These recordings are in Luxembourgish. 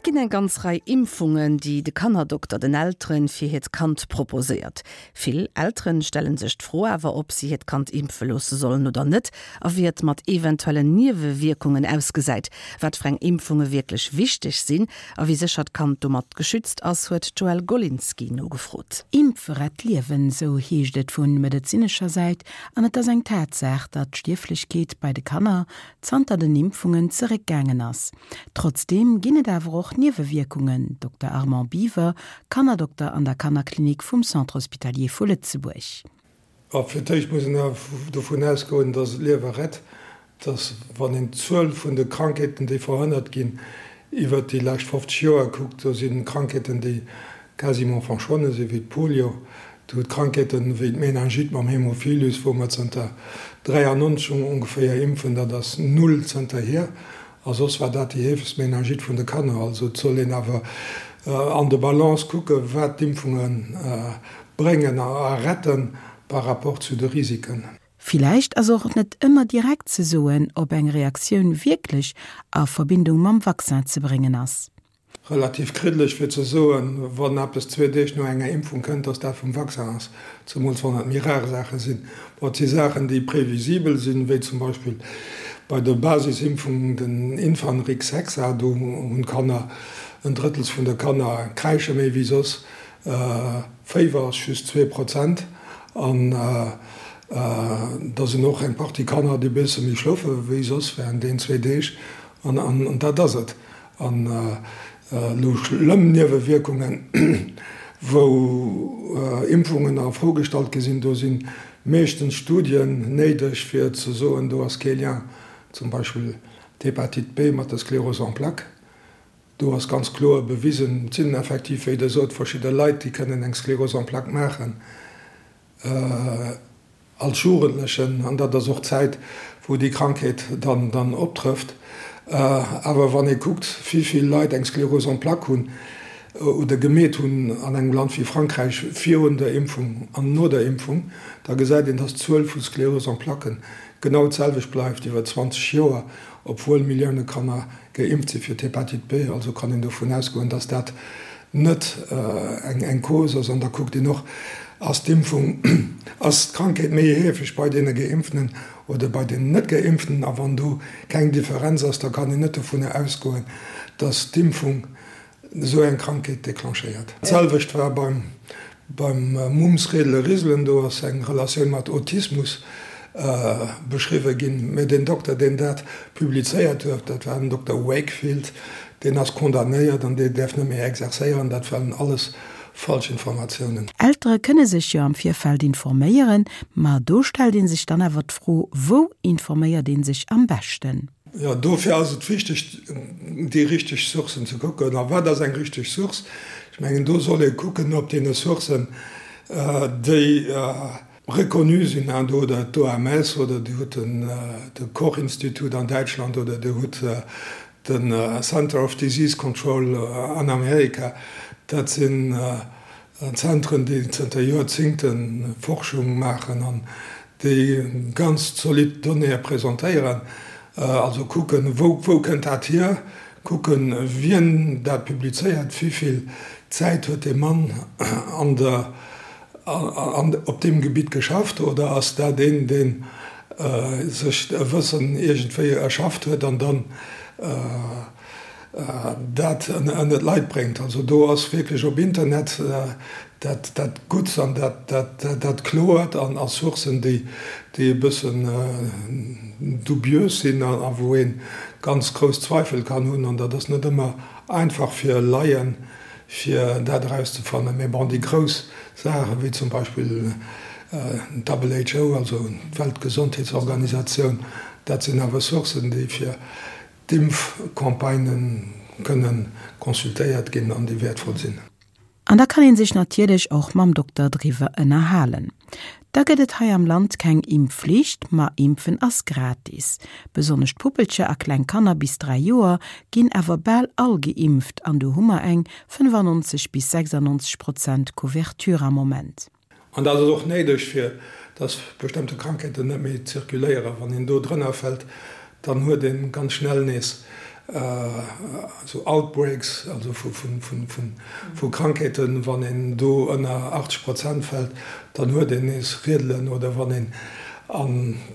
Et ginn eng ganz Rei Impfungen, déi de Kannerdokter den Elteren fir hiert Kand proposéiert. Vill Elteren stellen sech d'Fro awer, ob si hiert Kand impfe loosse sollen oder net a wéi et mat eventuellen Niewewierkungen ausgesäit. Wat fir eng Impfunge wierklech wichteg sinn a wéi sécher d'Kand domat geschützt ass, huet d'Joëlle Golinski nogefrot. Impfe rett Liewen, sou heescht et vu medezinescher Säit an et ass eng Tatsaach, datt d'Stierflechkeet bei de Kanner zanter den Impfungen zeréckgaangen ass. Trotzdeem ginn et awer och Niewewierkungen, Dokter Armand Biwer, Kannerdokter an der Kannerklinik vum Centre Hospitalier vu Lëtzebuerg. A fir d'éischt muss een awer dovun ausgoen, dass et Liewe rett, dass wann een d'Zuel vun de Krankheeten, déi verhënnert ginn, iwwert déi lescht 50 Joer kuckt, do si Krankheeten, déi quasiment verschwonne sinn, wéi d'Polio, Dir hutt Krankheeten wéi d'Meningite mam Haemophilus, wou mer zënter 93 ongeféier impfen, dat ass null zënterhier. A soss war dat déi heefegst Meningite vun de Kanner. Also et soll een awer an de Balance kucken, wat d'Impfunge bréngen a retten par rapport zu de Risiken. Villäicht ass och net ëmmer direkt ze soen, ob eng Reaktioun wierklech a Verbindung mam Vaccin ze bréngen ass. Relativ kriddeleg fir ze soen, wann eppes zwee Deeg no enger Impfung kënnt, dass dat vum Vaccin ass, zemools wann et méi rar Saache sinn. Bon, et si Saachen, déi previsibel sinn, wéi zum Beispill bei der Basisimpfung den Infanrix Hexa, do hunn d'Kanner, en Drëttels vun de Kanner kräische méi wéi soss, Féiwer ass just 2% an da sinn och eng Partie Kanner, déi e bësse méi schlofe wéi soss während deenen zwee Deeg an dat ass et. An elo schlëmm Niewewierkungen, wou Impfungen a Fro gestallt gi sinn, do si meeschtens Studien néideg, fir ze soen, do ass kee Lien, zum Beispill d'Hépatite B mat der Sclérose en plaques. Do ass ganz kloer bewisen, et sinn effektiv, wéi Der sot, verschidde Leit, déi kënnen eng Sclérose en plaques maachen. Als Jugendlechen, an dat ass och d'Zäit, wou déi Krankheet dann dann optrëfft. Awer wann ee kuckt, wéi vill Leit eng Sclérose en plaques hunn oder gemeet hunn an engem Land wéi Frankräich virun der Impfung an no der Impfung, da gesäit een, dass d'Zuel vu Sclérose en plaquë genau d'selwecht bleift iwwer 20 Joer, obwuel Millioune Kanner geimpft si fir d'Hépatite B. Also kann een dovun ausgoen, dass dat net eng Cause ass. An da kuckt een och, Ass d'Impfung, ass d'Krankheet méi heefeg bei deene Geimpften oder bei deenen Net-Geimpften? A wann do keng Differenz ass, da kann een net dovunner ausgoen, dass d'Impfung esou eng Krankheet declenchéiert. D'selwecht war beim beim Mumps, Redele, Riselen, do ass eng Relatioun mat Autismus beschriwwe ginn. Mä deen Dokter, deen dat publizéiert huet, dat war den Dokter Wakefield, deen ass condamnéiert an dee däerf net méi exerzéieren. Dat waren alles falsch Informatiounen. Eltere kënne sech jo am Virfeld informéieren, ma do stellt ee sech dann awer d'Fro, Wou informéiert ee sech am beschten? Jo, dofir ass et wichteg, déi richteg Sourcen ze kucken. A wat ass eng richteg Source? Ech mengen, do soll ee kucken op deene Sourcen, déi reconnu sinn, hein, do hutt Der d'OMS oder Dir hutt de Koch-Institut an Däitschland oder Dir hutt de Center of Disease Control an Amerika. Dat sinn Zentren, déi zënter Joerzingte Forschung maachen an déi ganz zolidd Donnéeë presentéieren. Also kucken, wou kënnt dat hier, kucken, wien dat publizéiert, wéi vill Zäit huet dee Mann an der, op deem Gebitt geschafft oder ass dat een, dee sech e Wëssen iergendwéi erschafft huet an dann dat ënner d'Leit bréngt. Also do ass wierklech op Internet dat dat Gutts an dat dat Kloert an a Sourcen, déi déi e bëssen dubiös sinn a wou ee ganz grouss Zweifel kann hunn. An dat ass net ëmmer einfach fir Laien, fir dat erauszefannen. Mä bon, déi grouss Saachen, wéi zum Beispill d'WHO, also d'Weltgesondheetsorganisatioun, dat sinn awer Sourcen, déi fir D'Impfcampagnë kënne consultéiert ginn an déi wäertvoll sinn. An da kann een sech natierlech och mam Dokter driwwer ënnerhalen. Da gëtt et hei am Land keng Impfflicht, ma impfen ass gratis. Besonnesch d'Puppelcher a kleng Kanner bis 3 Joer ginn awer bal all geimpft an do hu mer eng 95 bis 96 Prozent Couverture am Moment. An dat ass och néideg, fir dass bestëmmte Krankheeten net méi zirkuléieren. Wann een do drënner fält, dann huet ee ganz schnell nees. Esou Outbreaks, also vu Krankheeten, wann een do ënner 80 Prozent fält, dann huet een nees Riedelen, oder wann een a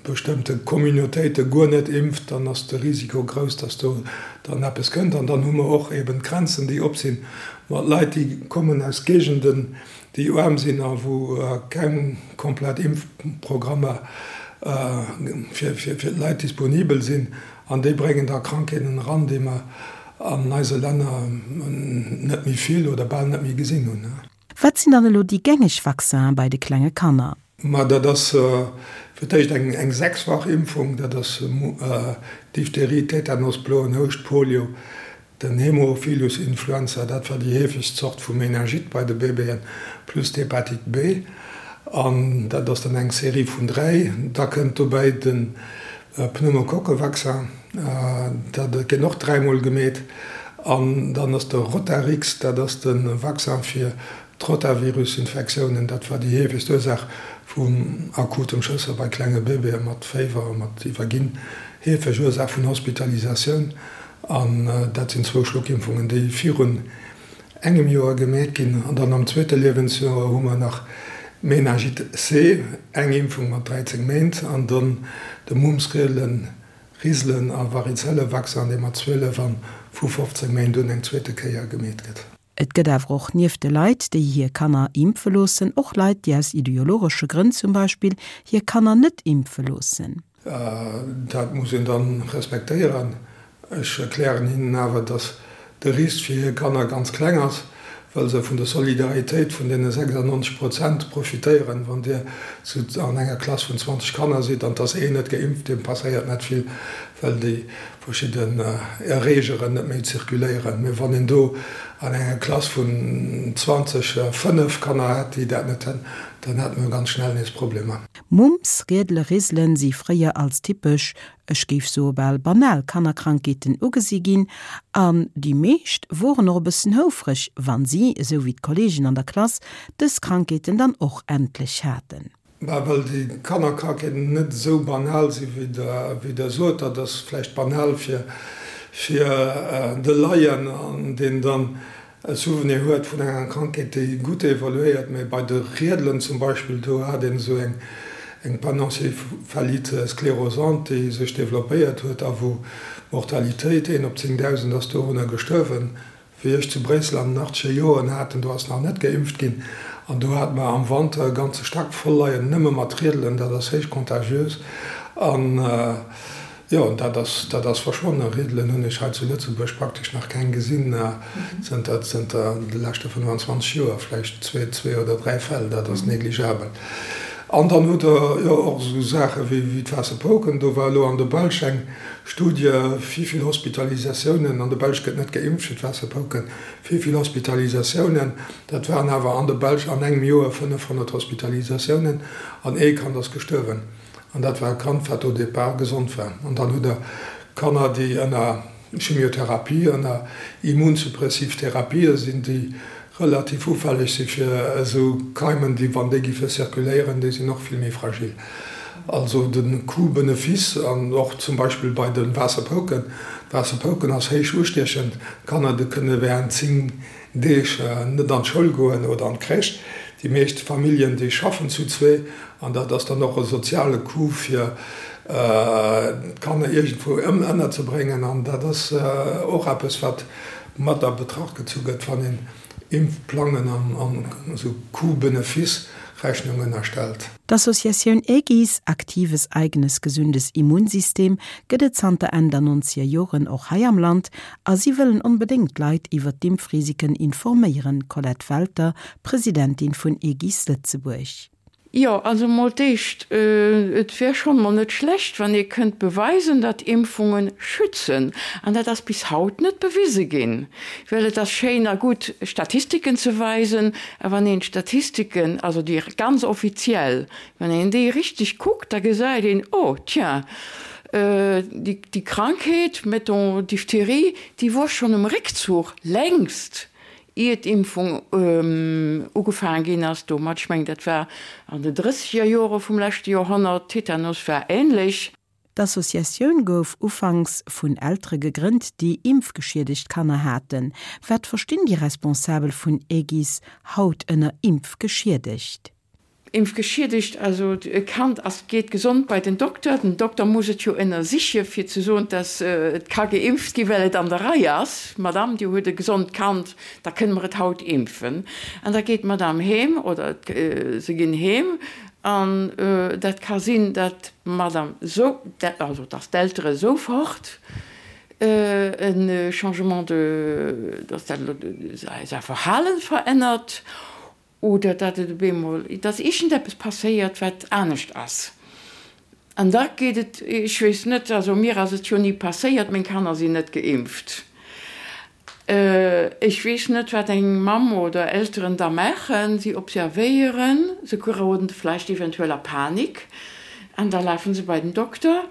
bestëmmte Communautéite guer net impft, dann ass de Risiko grouss, datt do dann eppes kënnt. An dann hu mer och eben d'Grenzen, déi op sinn, mat Leit, déi kommen aus Géigenden, déi aarm sinn a wou keng komplett Impfprogrammer fir d'Leit disponibel sinn. An déi bréngen da Krankheeten eran, déi mer an eise Länner net méi vill oder bal net méi gesinn hunn. Wat sinn dann elo déi gängeg Vaccinen bei de klenge Kanner? Ma dat ass fir d'éischt eng sechsfach Impfung, dat ass Diphtherie, Tetanus, bloen Houscht, Polio, Den Haemophilus influenza, dat war déi heefegst Zort vu Meningite bei de Bébéen, plus d'Hepatite B. An dat ass dann eng Serie vun 3. Da kënnt dobäi de Pneumokokkevaccin, dat gëtt och dräimol gemeet. An dann ass de Rotarix, dat ass de Vaccin fir d'Rotavirusinfektiounen. Dat war déi heefegst Ursaach vum akutem Schësser bei klenge Bébéë mat Féiwer a mat Iwwerginn, heefeg Ursaach vun Hospitalisatioun. An dat sinn zwou Schluckimpfungen, déi virun engem Joer gemeet ginn. An dann am zweete Liewensjoer hu mer nach Meningite C, eng Impfung mat 13 Méint, an dann de Mumps, Riedelen, Riselen a Varizelle-Vaccin, dee mat 12 an vu 15 Méint un eng zweete Kéier gemeet gëtt. Et gëtt awer och nieft de Leit, déi hir Kanner impfe loossen, och Leit, déi aus ideologesche Grënn zum Beispill hir Kanner net impfe loossen. Dat muss een dann respektéieren. Ech erklären hinnen awer, dass de Risk fir hir Kanner ganz kleng ass, well se vun der Solidaritéit vun deene 96 Prozent profitéieren. Wann Dir an enger Klass vun 20 Kanner sidd an 't ass een net geimpft, deem passéiert net vill, well déi verschidden Erreegeren net méi zirkuléieren. Mee wann een do an enger Klass vun 20 fënnef Kanner hätt, déi dat net hunn, dann hätte mer ganz schnell nees Problemer. Mumps, Riedele, Riselen si fréier als typesch, ech géif soe bal banal Kannerkrankheeten ugesi ginn an déi meescht woren och e bëssen houfreg, wann si, esou wéi d'Kollegen an der Klass, dës Krankheeten dann och endlech haten. Bah, well déi Kannerkrankheeten net esou banal si wéi Der sot. Dat ass vläicht banal fir de Laien, an deen dann e Souvenir huet vun enger Krankheet, déi gutt evoluéiert, mä bei de Riedelen zum Beispill, do hat een esou eng Panencéphalite sclérosante, déi sech developpéiert huet a wou d'Mortalitéit, een op 10.000 ass dorunner gestuerwen. Wéi ech zu Bréissel an den achtzeger Joren haten, do ass nach net geimpft ginn, an do hate mer am Wanter e ganze Stack voll leien, nëmme mat Riedelen, dat ass héich contagiös an Jo, dat ass, dat ass verschwonnen. Riedelen hunn ech hei zu Lëtzebuerg praktesch nach keng gesinn zënter, zënter de leschte 25 Joer, vläicht zwee, zwee oder dräi Fäll, dat ass negligabel. An dann hutt Der jo och esou Saache wéi, wéi d'Waasserpouken. Do war elo an der Belsch eng Studie, wéi vill Hospitalisatiounen, an der Belsch gëtt net geimpft fir d'Waasserpouken, wéi vill Hospitalisatiounen, dat waren awer an der Belsch an engem Joer 500 Hospitalisatiounen an ee Kand ass gestuerwen. An dat war e Kand, wat au départ gesond war. An dann hutt Der Kanner, déi ënner Chimiotherapie, ënner immunsuppressiv Therapië sinn, déi relativ ufälleg si fir esou Keimen, déi, wann déi giffe zirkuléieren, déi sinn och vill méi fragil. Also de Coût-Benefice, an och zum Beispill bei de Waasserpouken, d'Waasserpouken ass héich ustiechend, d'Kanner, déi kënne während 10 Deeg net an d'Schoul goen oder an d'Crèche. Déi meescht Familljen, déi schaffen zu zwee an dat ass dann och e soziale Coût fir d'Kanner iergendwou ënnerzebréngen. An dat ass och eppes, wat mat a Betracht gezu gëtt, wann een Impfplangen an esou Coût-Benefice-Rechnungen erstellt. D'Associatioun AEGIS, Aktives Eigenes Gesundes Immunsystem, gëtt et zanter Enn der nonzeger Joren och hei am Land a si wëllen onbedéngt d'Leit iwwer d'Impfrisiken informéieren, Colette Welter, Presidentin vun AEGIS Lëtzebuerg. Jo, also mol d'éischt, et wär schonn mol net schlecht, wann ee kënnt beweisen, datt Impfunge schützen. An dat ass bis haut net bewise ginn. Well et ass schéin a gutt, Statistiken ze weisen, a wann een d'Statistiken, also déi ganz offiziell, wann een déi richteg kuckt, da gesäit een, oh tiens, déi Krankheet, mettons Diphtherie, déi wor schonn um Réckzuch längst, ier d'Impfung ugefaange ginn ass domat. Ech mengen, dat war an den drësseger Jore vum leschte Joerhonnert. Tetanus war ähnlech. D'Associatioun gouf ufanks vun Eltere gegrënnt, déi impfgeschiedegt Kanner haten. Wat verstinn déi Responsabel vun Aegis haut ënner impfgeschiedegt? Impfgeschiedegt, also e Kand ass, geet gesond bei den Dokter, den Dokter muss et jo ënnersiche fir ze soen, dass et ka geimpft gi well et an der Rei ass, Madame, Dir hutt e gesond Kand, da kënne mer et haut impfen. An da geet d'Madame heem oder se ginn heem an dat ka sinn, dat d'Madame sou, also dass d'Eltere sofort e Changement de, dass dat säi Verhalen verännert Oder datt et op eemol, datt iergendeppes passéiert, wat anescht ass. An da geet et, ech weess net, also mir ass et jo ni passéiert, meng Kanner sinn net geimpft. Ech weess net, wat eng Mamm oder Elteren da maachen. Si observéieren, se geroden vläicht eventuell a Panik an da lafe se bei den Dokter.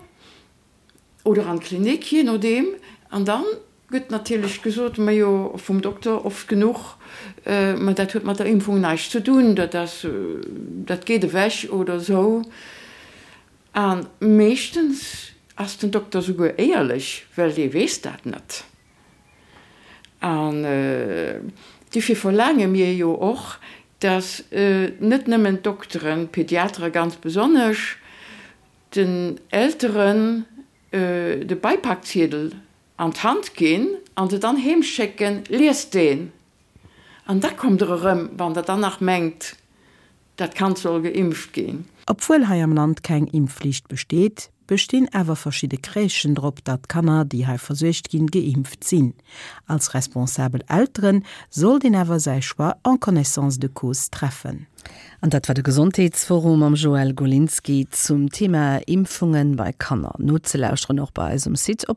Oder an d'Klinik, jee nodeem. An da gëtt natierlech gesot, majo, vum Dokter oft genuch, ma dat huet mat der Impfung näischt ze dunn, dat ass, dat geet ewech oder esou. A meeschtens ass den Dokter souguer éierlech, well dee weess dat net. An dofir verlaange mir jo och, dass net nëmmen d'Dokteren, d'Pediatere ganz besonnesch, den Elteren de Beipakziedel an d'Hand ginn an se dann heem schécken, liest deen an da kommt der erëm, wann der dann nach mengt, dat Kand soll geimpft ginn. Obwuel hei am Land keng Impfflicht besteet, bestinn awer verschidde Crèchen drop, datt d'Kanner, déi hei versuergt ginn, geimpft sinn. Als responsabel Elteren sollt een awer säi Choix en connaissance de cause treffen. An dat war de Gesondheetsforum mam Joël Golinski zum Thema Impfungen bei Kanner. Nozelauschteren och bei eis um Site op.